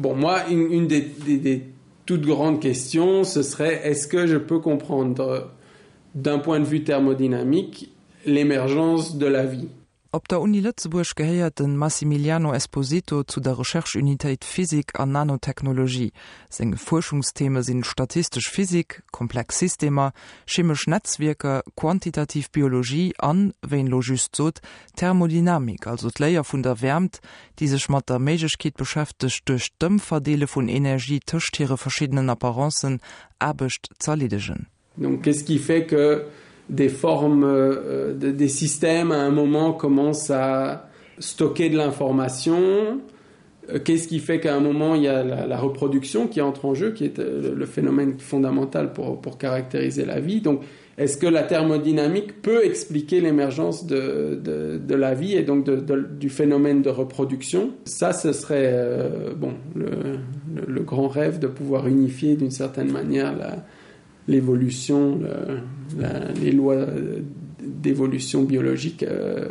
Bon moi une, une des, des, des toutes grandes questions ce serait est-ce que je peux comprendre d'un point de vue thermodynamique l'émergence de la vie? Op der Uni Lëtzebuerg gehéiert de Massimiliano Esposito zu der Recherche-Unitéit Physik an Nanotechnologie. Seng Fuerschungstheme sinn statistesch Physik, komplex Systemer, chemesch Netzwierker, quantitativ Biologie an, wéi en elo just sot, Thermodynamik, also d'Léier vun der Wäermt, déi sech mat der Méiglechkeet beschäftegt, duerch d'Ëmverdeele vun Energie tëscht hire verschiddenen Apparencen Aarbecht z'erleedegen. Donc qu'est-ce qui fait que des formes euh, de, des systèmes à un moment commencent à stocker de l'information euh, qu'est-ce qui fait qu'à un moment il y a la, la reproduction qui entre en jeu qui est euh, le phénomène fondamental pour, pour caractériser la vie donc est-ce que la thermodynamique peut expliquer l'émergence de, de, de la vie et donc de, de, du phénomène de reproduction ça ce serait euh, bon le, le, le grand rêve de pouvoir unifier d'une certaine manière la l'évolution les lois d'évolution biologique euh,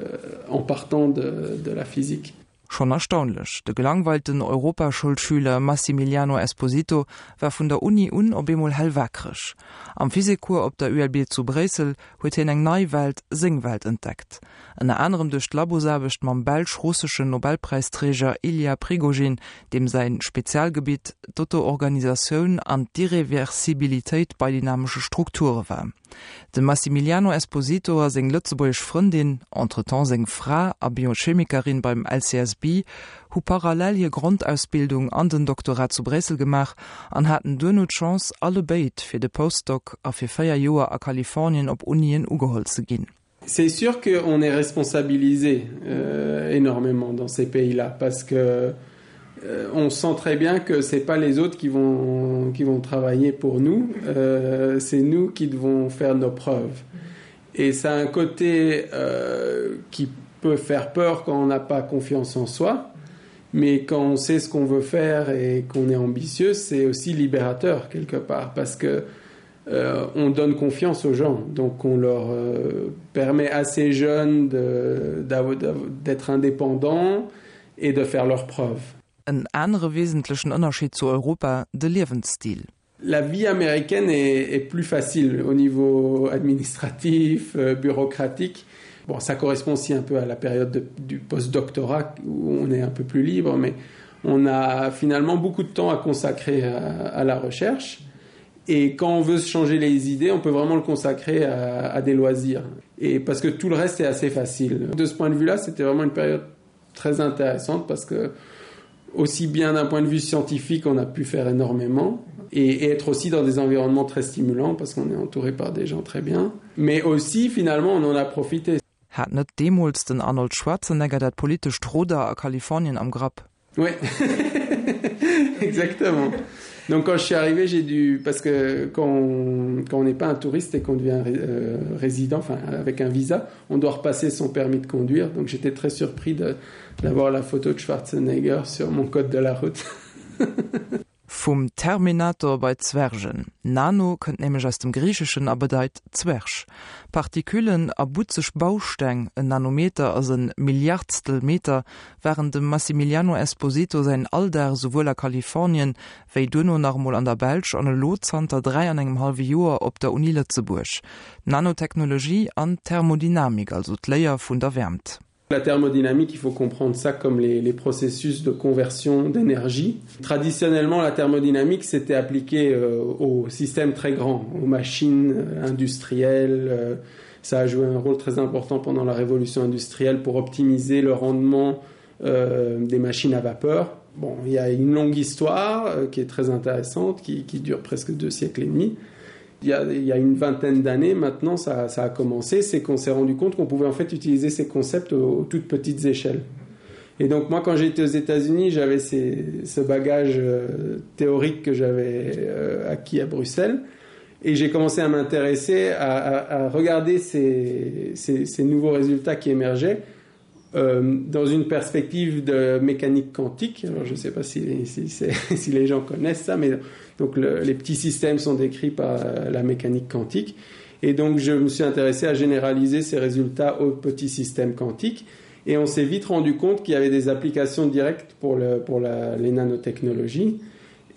en partant de, de la physique. Schonn erstaunlech, de gelangweilten Europaschoulschüler Massimiliano Esposito war vun der Uni un op eemol hellwakereg. Am Physikcours op der ULB zu Bréissel huet hien eng nei Welt, seng Welt entdeckt. Ënner anerem duerch d'Labosaarbecht mam belsch-russeschen Nobelpräisträger Ilya Prigogine, deem säi Spezialgebitt d'Auto-Organisatioun an d'Irreversibilitéit bei dynamesche Strukture war. De Massimiliano Esposito a seng lëtzebuergesch Frëndin, entretemps seng Fra a Biochemikerin beim LCSB, hu parallel hir Grondausbildung an den Doktorat zu Bréissel gemaach an haten duerno d'Chance, allebéid fir de Postdoc a fir 4 Joer a Kalifornien op Unien ugeholl ze ginn. C'est sûr qu'on est responsabilisé euh, énormément dans ces pays-là parce que euh, on sent très bien que c'est pas les autres qui vont qui vont travailler pour nous euh, c'est nous qui devons faire nos preuves et ça a un côté euh, qui peut faire peur quand on n'a pas confiance en soi mais quand on sait ce qu'on veut faire et qu'on est ambitieux c'est aussi libérateur quelque part parce que euh, on donne confiance aux gens donc on leur euh, permet assez jeunes d'être indépendants et de faire leurs preuves. En anere wesentlechen Ënnerscheed zu Europa, de Liewensstil. La vie américaine est, est plus facile au niveau administratif, euh, bureaucratique. Bon, ça correspond aussi un peu à la période de, du postdoctorat où on est un peu plus libre, mais on a finalement beaucoup de temps à consacrer à, à la recherche. Et quand on veut se changer les idées, on peut vraiment le consacrer à, à des loisirs. Et parce que tout le reste est assez facile. De ce point de vue là, c'était vraiment une période très intéressante parce que aussi bien d'un point de vue scientifique, on a pu faire énormément et, et être aussi dans des environnements très stimulants parce qu'on est entouré par des gens très bien. Mais aussi finalement on en a profité. Hat net deemools den Arnold Schwarzenegger dat politescht Ruder a Kalifornien am Grapp? Oui exactement. Donc quand je suis arrivé, j'ai dû parce que quand on, quand on n'est pas un touriste et qu'on devient euh, résident enfin avec un visa, on doit repasser son permis de conduire. Donc j'étais très surpris d'avoir la photo de Schwarzenegger sur mon code de la route. Vum Terminator bei d'Zwergen. Nano kënnt nämlech aus dem Griicheschen a bedeit Zwerg. Partiküllen a butzeg Bausteng, en Nanometer ass en Milliardstel Meter, waren dem Massimiliano Esposito säin Alldag esouwuel a Kalifornien, wéi duerno nach emol an der Belsch an elo zanter 3 an engem hallwe Joer op der Uni Lëtzebuerg. Nanotechnologie an Thermodynamik, also d'Léier vun der Wäermt. La thermodynamique, il faut comprendre ça comme les, les processus de conversion d'énergie. Traditionnellement, la thermodynamique s'était appliquée euh, aux systèmes très grands, aux machines euh, industrielles. Euh, ça a joué un rôle très important pendant la révolution industrielle pour optimiser le rendement euh, des machines à vapeur. Bon, il y a une longue histoire euh, qui est très intéressante, qui, qui dure presque deux siècles et demi. Il y a, il y a une vingtaine d'années maintenant ça, ça a commencé, c'est qu'on s'est rendu compte qu'on pouvait en fait utiliser ces concepts aux, aux toutes petites échelles. Et donc moi quand j'étais aux États-Unis, j'avais ce bagage euh, théorique que j'avais euh, acquis à Bruxelles et j'ai commencé à m'intéresser à, à, à regarder ces, ces, ces nouveaux résultats qui émergeaient euh, dans une perspective de mécanique quantique. Alors, je ne sais pas si, si, si, si les gens connaissent ça, mais donc le, les petits systèmes sont décrits par euh, la mécanique quantique. Et donc je me suis intéressé à généraliser ces résultats aux petits systèmes quantiques. Et on s'est vite rendu compte qu'il y avait des applications directes pour, le, pour la, les nanotechnologies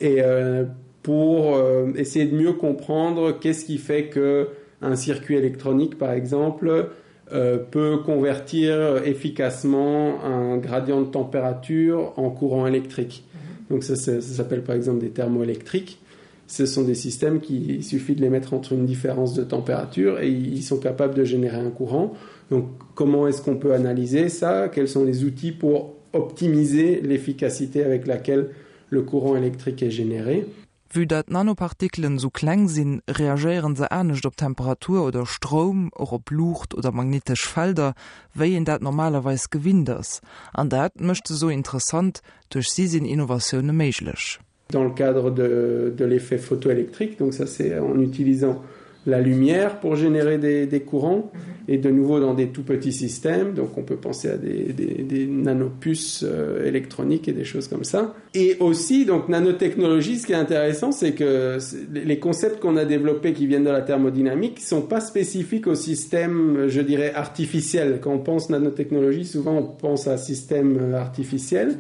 et euh, pour euh, essayer de mieux comprendre qu'est-ce qui fait que un circuit électronique, par exemple, euh, peut convertir efficacement un gradient de température en courant électrique. Mhm. Donc ça, ça, ça s'appelle par exemple des thermoélectriques. Ce sont des systèmes qui il suffit de les mettre entre une différence de température et ils sont capables de générer un courant. Donc comment est-ce qu'on peut analyser ça Quels sont les outils pour optimiser l'efficacité avec laquelle le courant électrique est généré Vue dat d'Nanopartikelen sou kleng sinn, reagéieren se anescht op Temperatur oder Stroum, och op Luucht oder magnetesch Felder, wéi een dat normalerweis gewinnt ass. An dat mécht se sou interessant, duerch si sinn Innovatioune méiglech. Dans le cadre de, de l'effet photoélectrique, donc ça c'est en utilisant la lumière pour générer des, des courants mhm. et de nouveau dans des tout petits systèmes donc on peut penser à des, des, des nanopuces euh, électroniques et des choses comme ça et aussi donc nanotechnologie ce qui est intéressant c'est que les concepts qu'on a développés qui viennent de la thermodynamique sont pas spécifiques au système je dirais artificiel quand on pense nanotechnologie souvent on pense à système euh, artificiel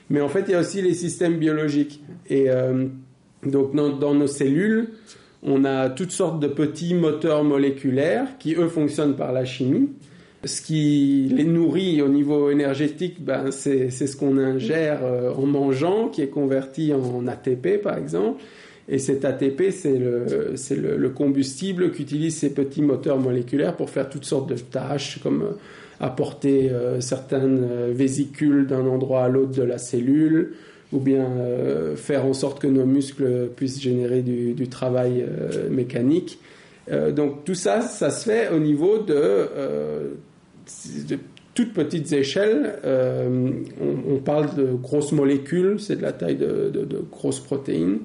mais en fait il y a aussi les systèmes biologiques et euh, donc dans, dans nos cellules on a toutes sortes de petits moteurs moléculaires qui eux fonctionnent par la chimie. Ce qui les nourrit au niveau énergétique, ben c'est ce qu'on ingère euh, en mangeant, qui est converti en ATP par exemple. Et cet ATP, c'est le, le, le combustible qu'utilisent ces petits moteurs moléculaires pour faire toutes sortes de tâches, comme euh, apporter euh, certaines euh, vésicules d'un endroit à l'autre de la cellule, ou bien euh, faire en sorte que nos muscles puissent générer du, du travail euh, mécanique. Euh, donc tout ça, ça se fait au niveau de, euh, de toutes petites échelles. Euh, on, on parle de grosses molécules, c'est de la taille de, de, de grosses protéines.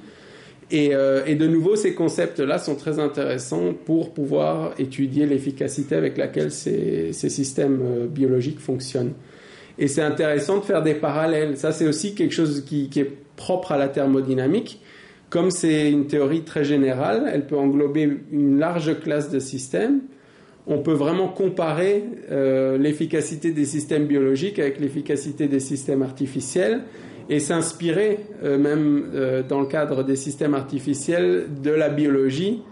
Et, euh, et de nouveau, ces concepts-là sont très intéressants pour pouvoir étudier l'efficacité avec laquelle ces, ces systèmes euh, biologiques fonctionnent. Et c'est intéressant de faire des parallèles. Ça, c'est aussi quelque chose qui, qui est propre à la thermodynamique. Comme c'est une théorie très générale, elle peut englober une large classe de systèmes. On peut vraiment comparer euh, l'efficacité des systèmes biologiques avec l'efficacité des systèmes artificiels et s'inspirer euh, même euh, dans le cadre des systèmes artificiels de la biologie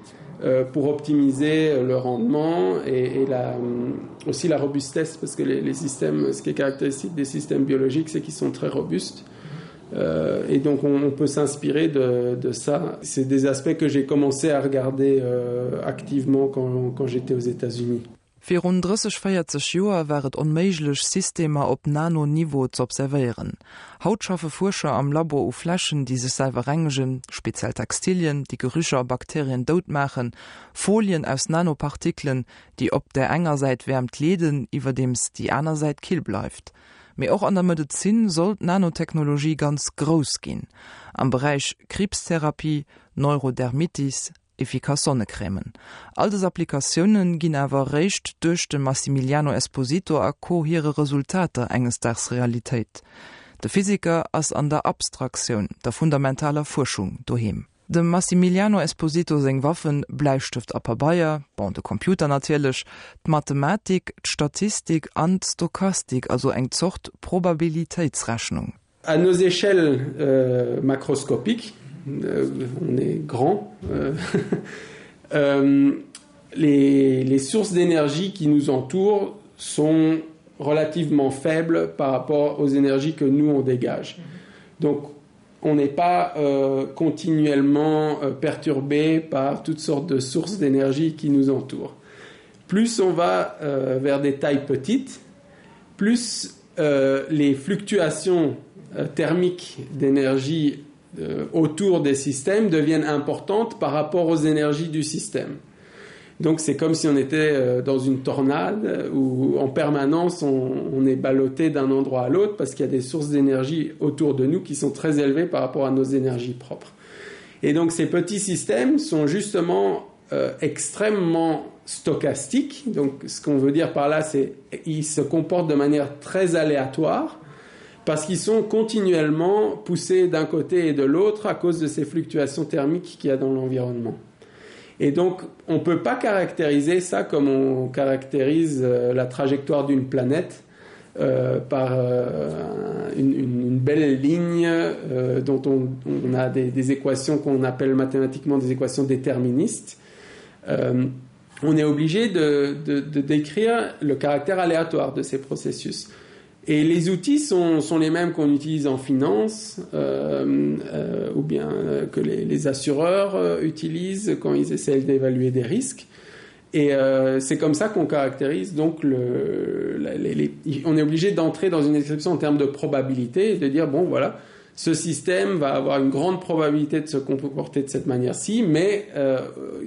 euh, pour optimiser le rendement et, et la, euh, aussi la robustesse parce que les, les systèmes ce qui est caractéristique des systèmes biologiques c'est qu'ils sont très robustes euh, et donc on, on peut s'inspirer de, de ça c'est des aspects que j'ai commencé à regarder euh, activement quand, quand j'étais aux états unis Virun 30, 40 Joer war et onméiglech, Systemer op Nano-Niveau z'observéieren. Haut schaffe Fuerscher am Labo u Fläschen, déi sech selwer rengegen, speziell Textilien, déi Gerücher a Bakterien dout maachen, Folien aus Nanopartikelen, déi op där enger Säit Wäermt leeden, iwwerdeems déi aner Säit kill bleift. Mee och an der Medezin soll d'Nanotechnologie ganz grouss ginn, am Beräich Kriibstherapie, Neurodermitis, Efficace Sonnecrèmen. All dës Applikatioune ginn awer eréischt duerch dem Massimiliano Esposito a Co. Hire Resultater enges Daags Realitéit. De Physiker ass an der Abstraktioun, der fundamentaler Fuerschung doheem. Dem Massimiliano Esposito seng Waffen, Bläistëft a Pabeier, bon, de Computer natierlech, d'Mathematik, d'Statistik an d'Stochastik, also eng Zort Probabilitéitsrechnung. À nos échelles euh, macroscopiques, euh, on est grand, euh, euh, les, les sources d'énergie qui nous entourent sont relativement faibles par rapport aux énergies que nous on dégage. Donc on n'est pas euh, continuellement euh, perturbé par toutes sortes de sources d'énergie qui nous entourent. Plus on va euh, vers des tailles petites, plus euh, les fluctuations euh, thermiques d'énergie euh, autour des systèmes deviennent importantes par rapport aux énergies du système. Donc c'est comme si on était euh, dans une tornade euh, où en permanence on, on est ballotté d'un endroit à l'autre parce qu'il y a des sources d'énergie autour de nous qui sont très élevées par rapport à nos énergies propres. Et donc ces petits systèmes sont justement euh, extrêmement stochastiques. Donc ce qu'on veut dire par là c'est ils se comportent de manière très aléatoire parce qu'ils sont continuellement poussés d'un côté et de l'autre à cause de ces fluctuations thermiques qu'il y a dans l'environnement. Et donc on ne peut pas caractériser ça comme on caractérise euh, la trajectoire d'une planète. euh, par euh, une, une, une belle ligne euh, dont on, on a des, des équations qu'on appelle mathématiquement des équations déterministes. Euh, on est obligé de, de, de décrire le caractère aléatoire de ces processus. Et les outils sont, sont les mêmes qu'on utilise en finance euh, euh, ou bien euh, que les, les assureurs euh, utilisent quand ils essaient d'évaluer des risques. Et euh, c'est comme ça qu'on caractérise donc le, la, les, les, on est obligé d'entrer dans une description en termes de probabilité et de dire bon voilà ce système va avoir une grande probabilité de se comporter de cette manière-ci, mais euh,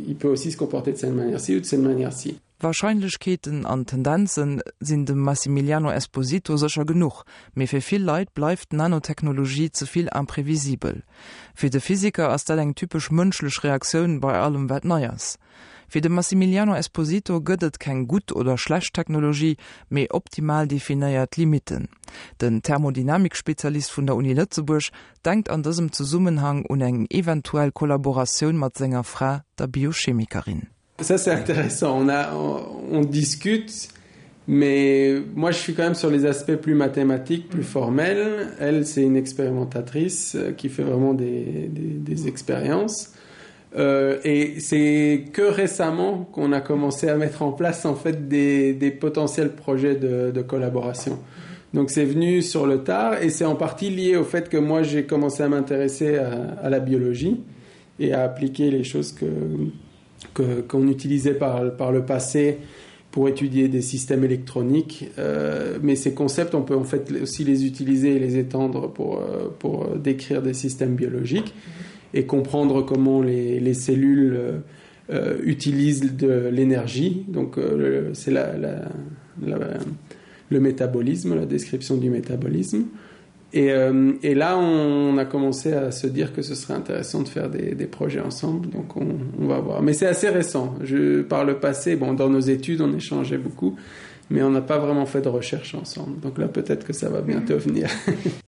il peut aussi se comporter de cette manière-ci ou de cette manière-ci. Warscheinlechkeeten an Tendenze sinn dem Massimiliano Esposito sécher genuch, mee fir vill Leit bleift d'Nanotechnologie ze vill imprevisibel. Fir de Physiker ass dat eng typesch mënschlech Reaktioun bei allem wat nei ass. Fir de Massimiliano Esposito gëtt et keng gutt oder schlecht Technologie, mee optimal definéiert Limitten. Den Thermodynamik-Spezialist vun der Uni Lëtzebuerg denkt an dësem Zesummenhang un eng eventuell Kollaboratioun mat senger Fra, der Biochemikerin. Ça c'est intéressant on a on, on discute mais moi je suis quand même sur les aspects plus mathématiques plus formels elle c'est une expérimentatrice euh, qui fait vraiment des, des, des expériences euh, et c'est que récemment qu'on a commencé à mettre en place en fait des, des potentiels projets de, de collaboration donc c'est venu sur le tard et c'est en partie lié au fait que moi j'ai commencé à m'intéresser à, à la biologie et à appliquer les choses que qu'on utilisait par, par le passé pour étudier des systèmes électroniques euh, mais ces concepts on peut en fait aussi les utiliser et les étendre pour, euh, pour décrire des systèmes biologiques et comprendre comment les, les cellules euh, euh utilisent de l'énergie donc euh, c'est la, la, la, le métabolisme la description du métabolisme Et, euh, et là, on a commencé à se dire que ce serait intéressant de faire des, des projets ensemble, donc on, on va voir. Mais c'est assez récent. Je, par le passé, bon, dans nos études, on échangeait beaucoup, mais on n'a pas vraiment fait de recherche ensemble. Donc là, peut-être que ça va bientôt venir.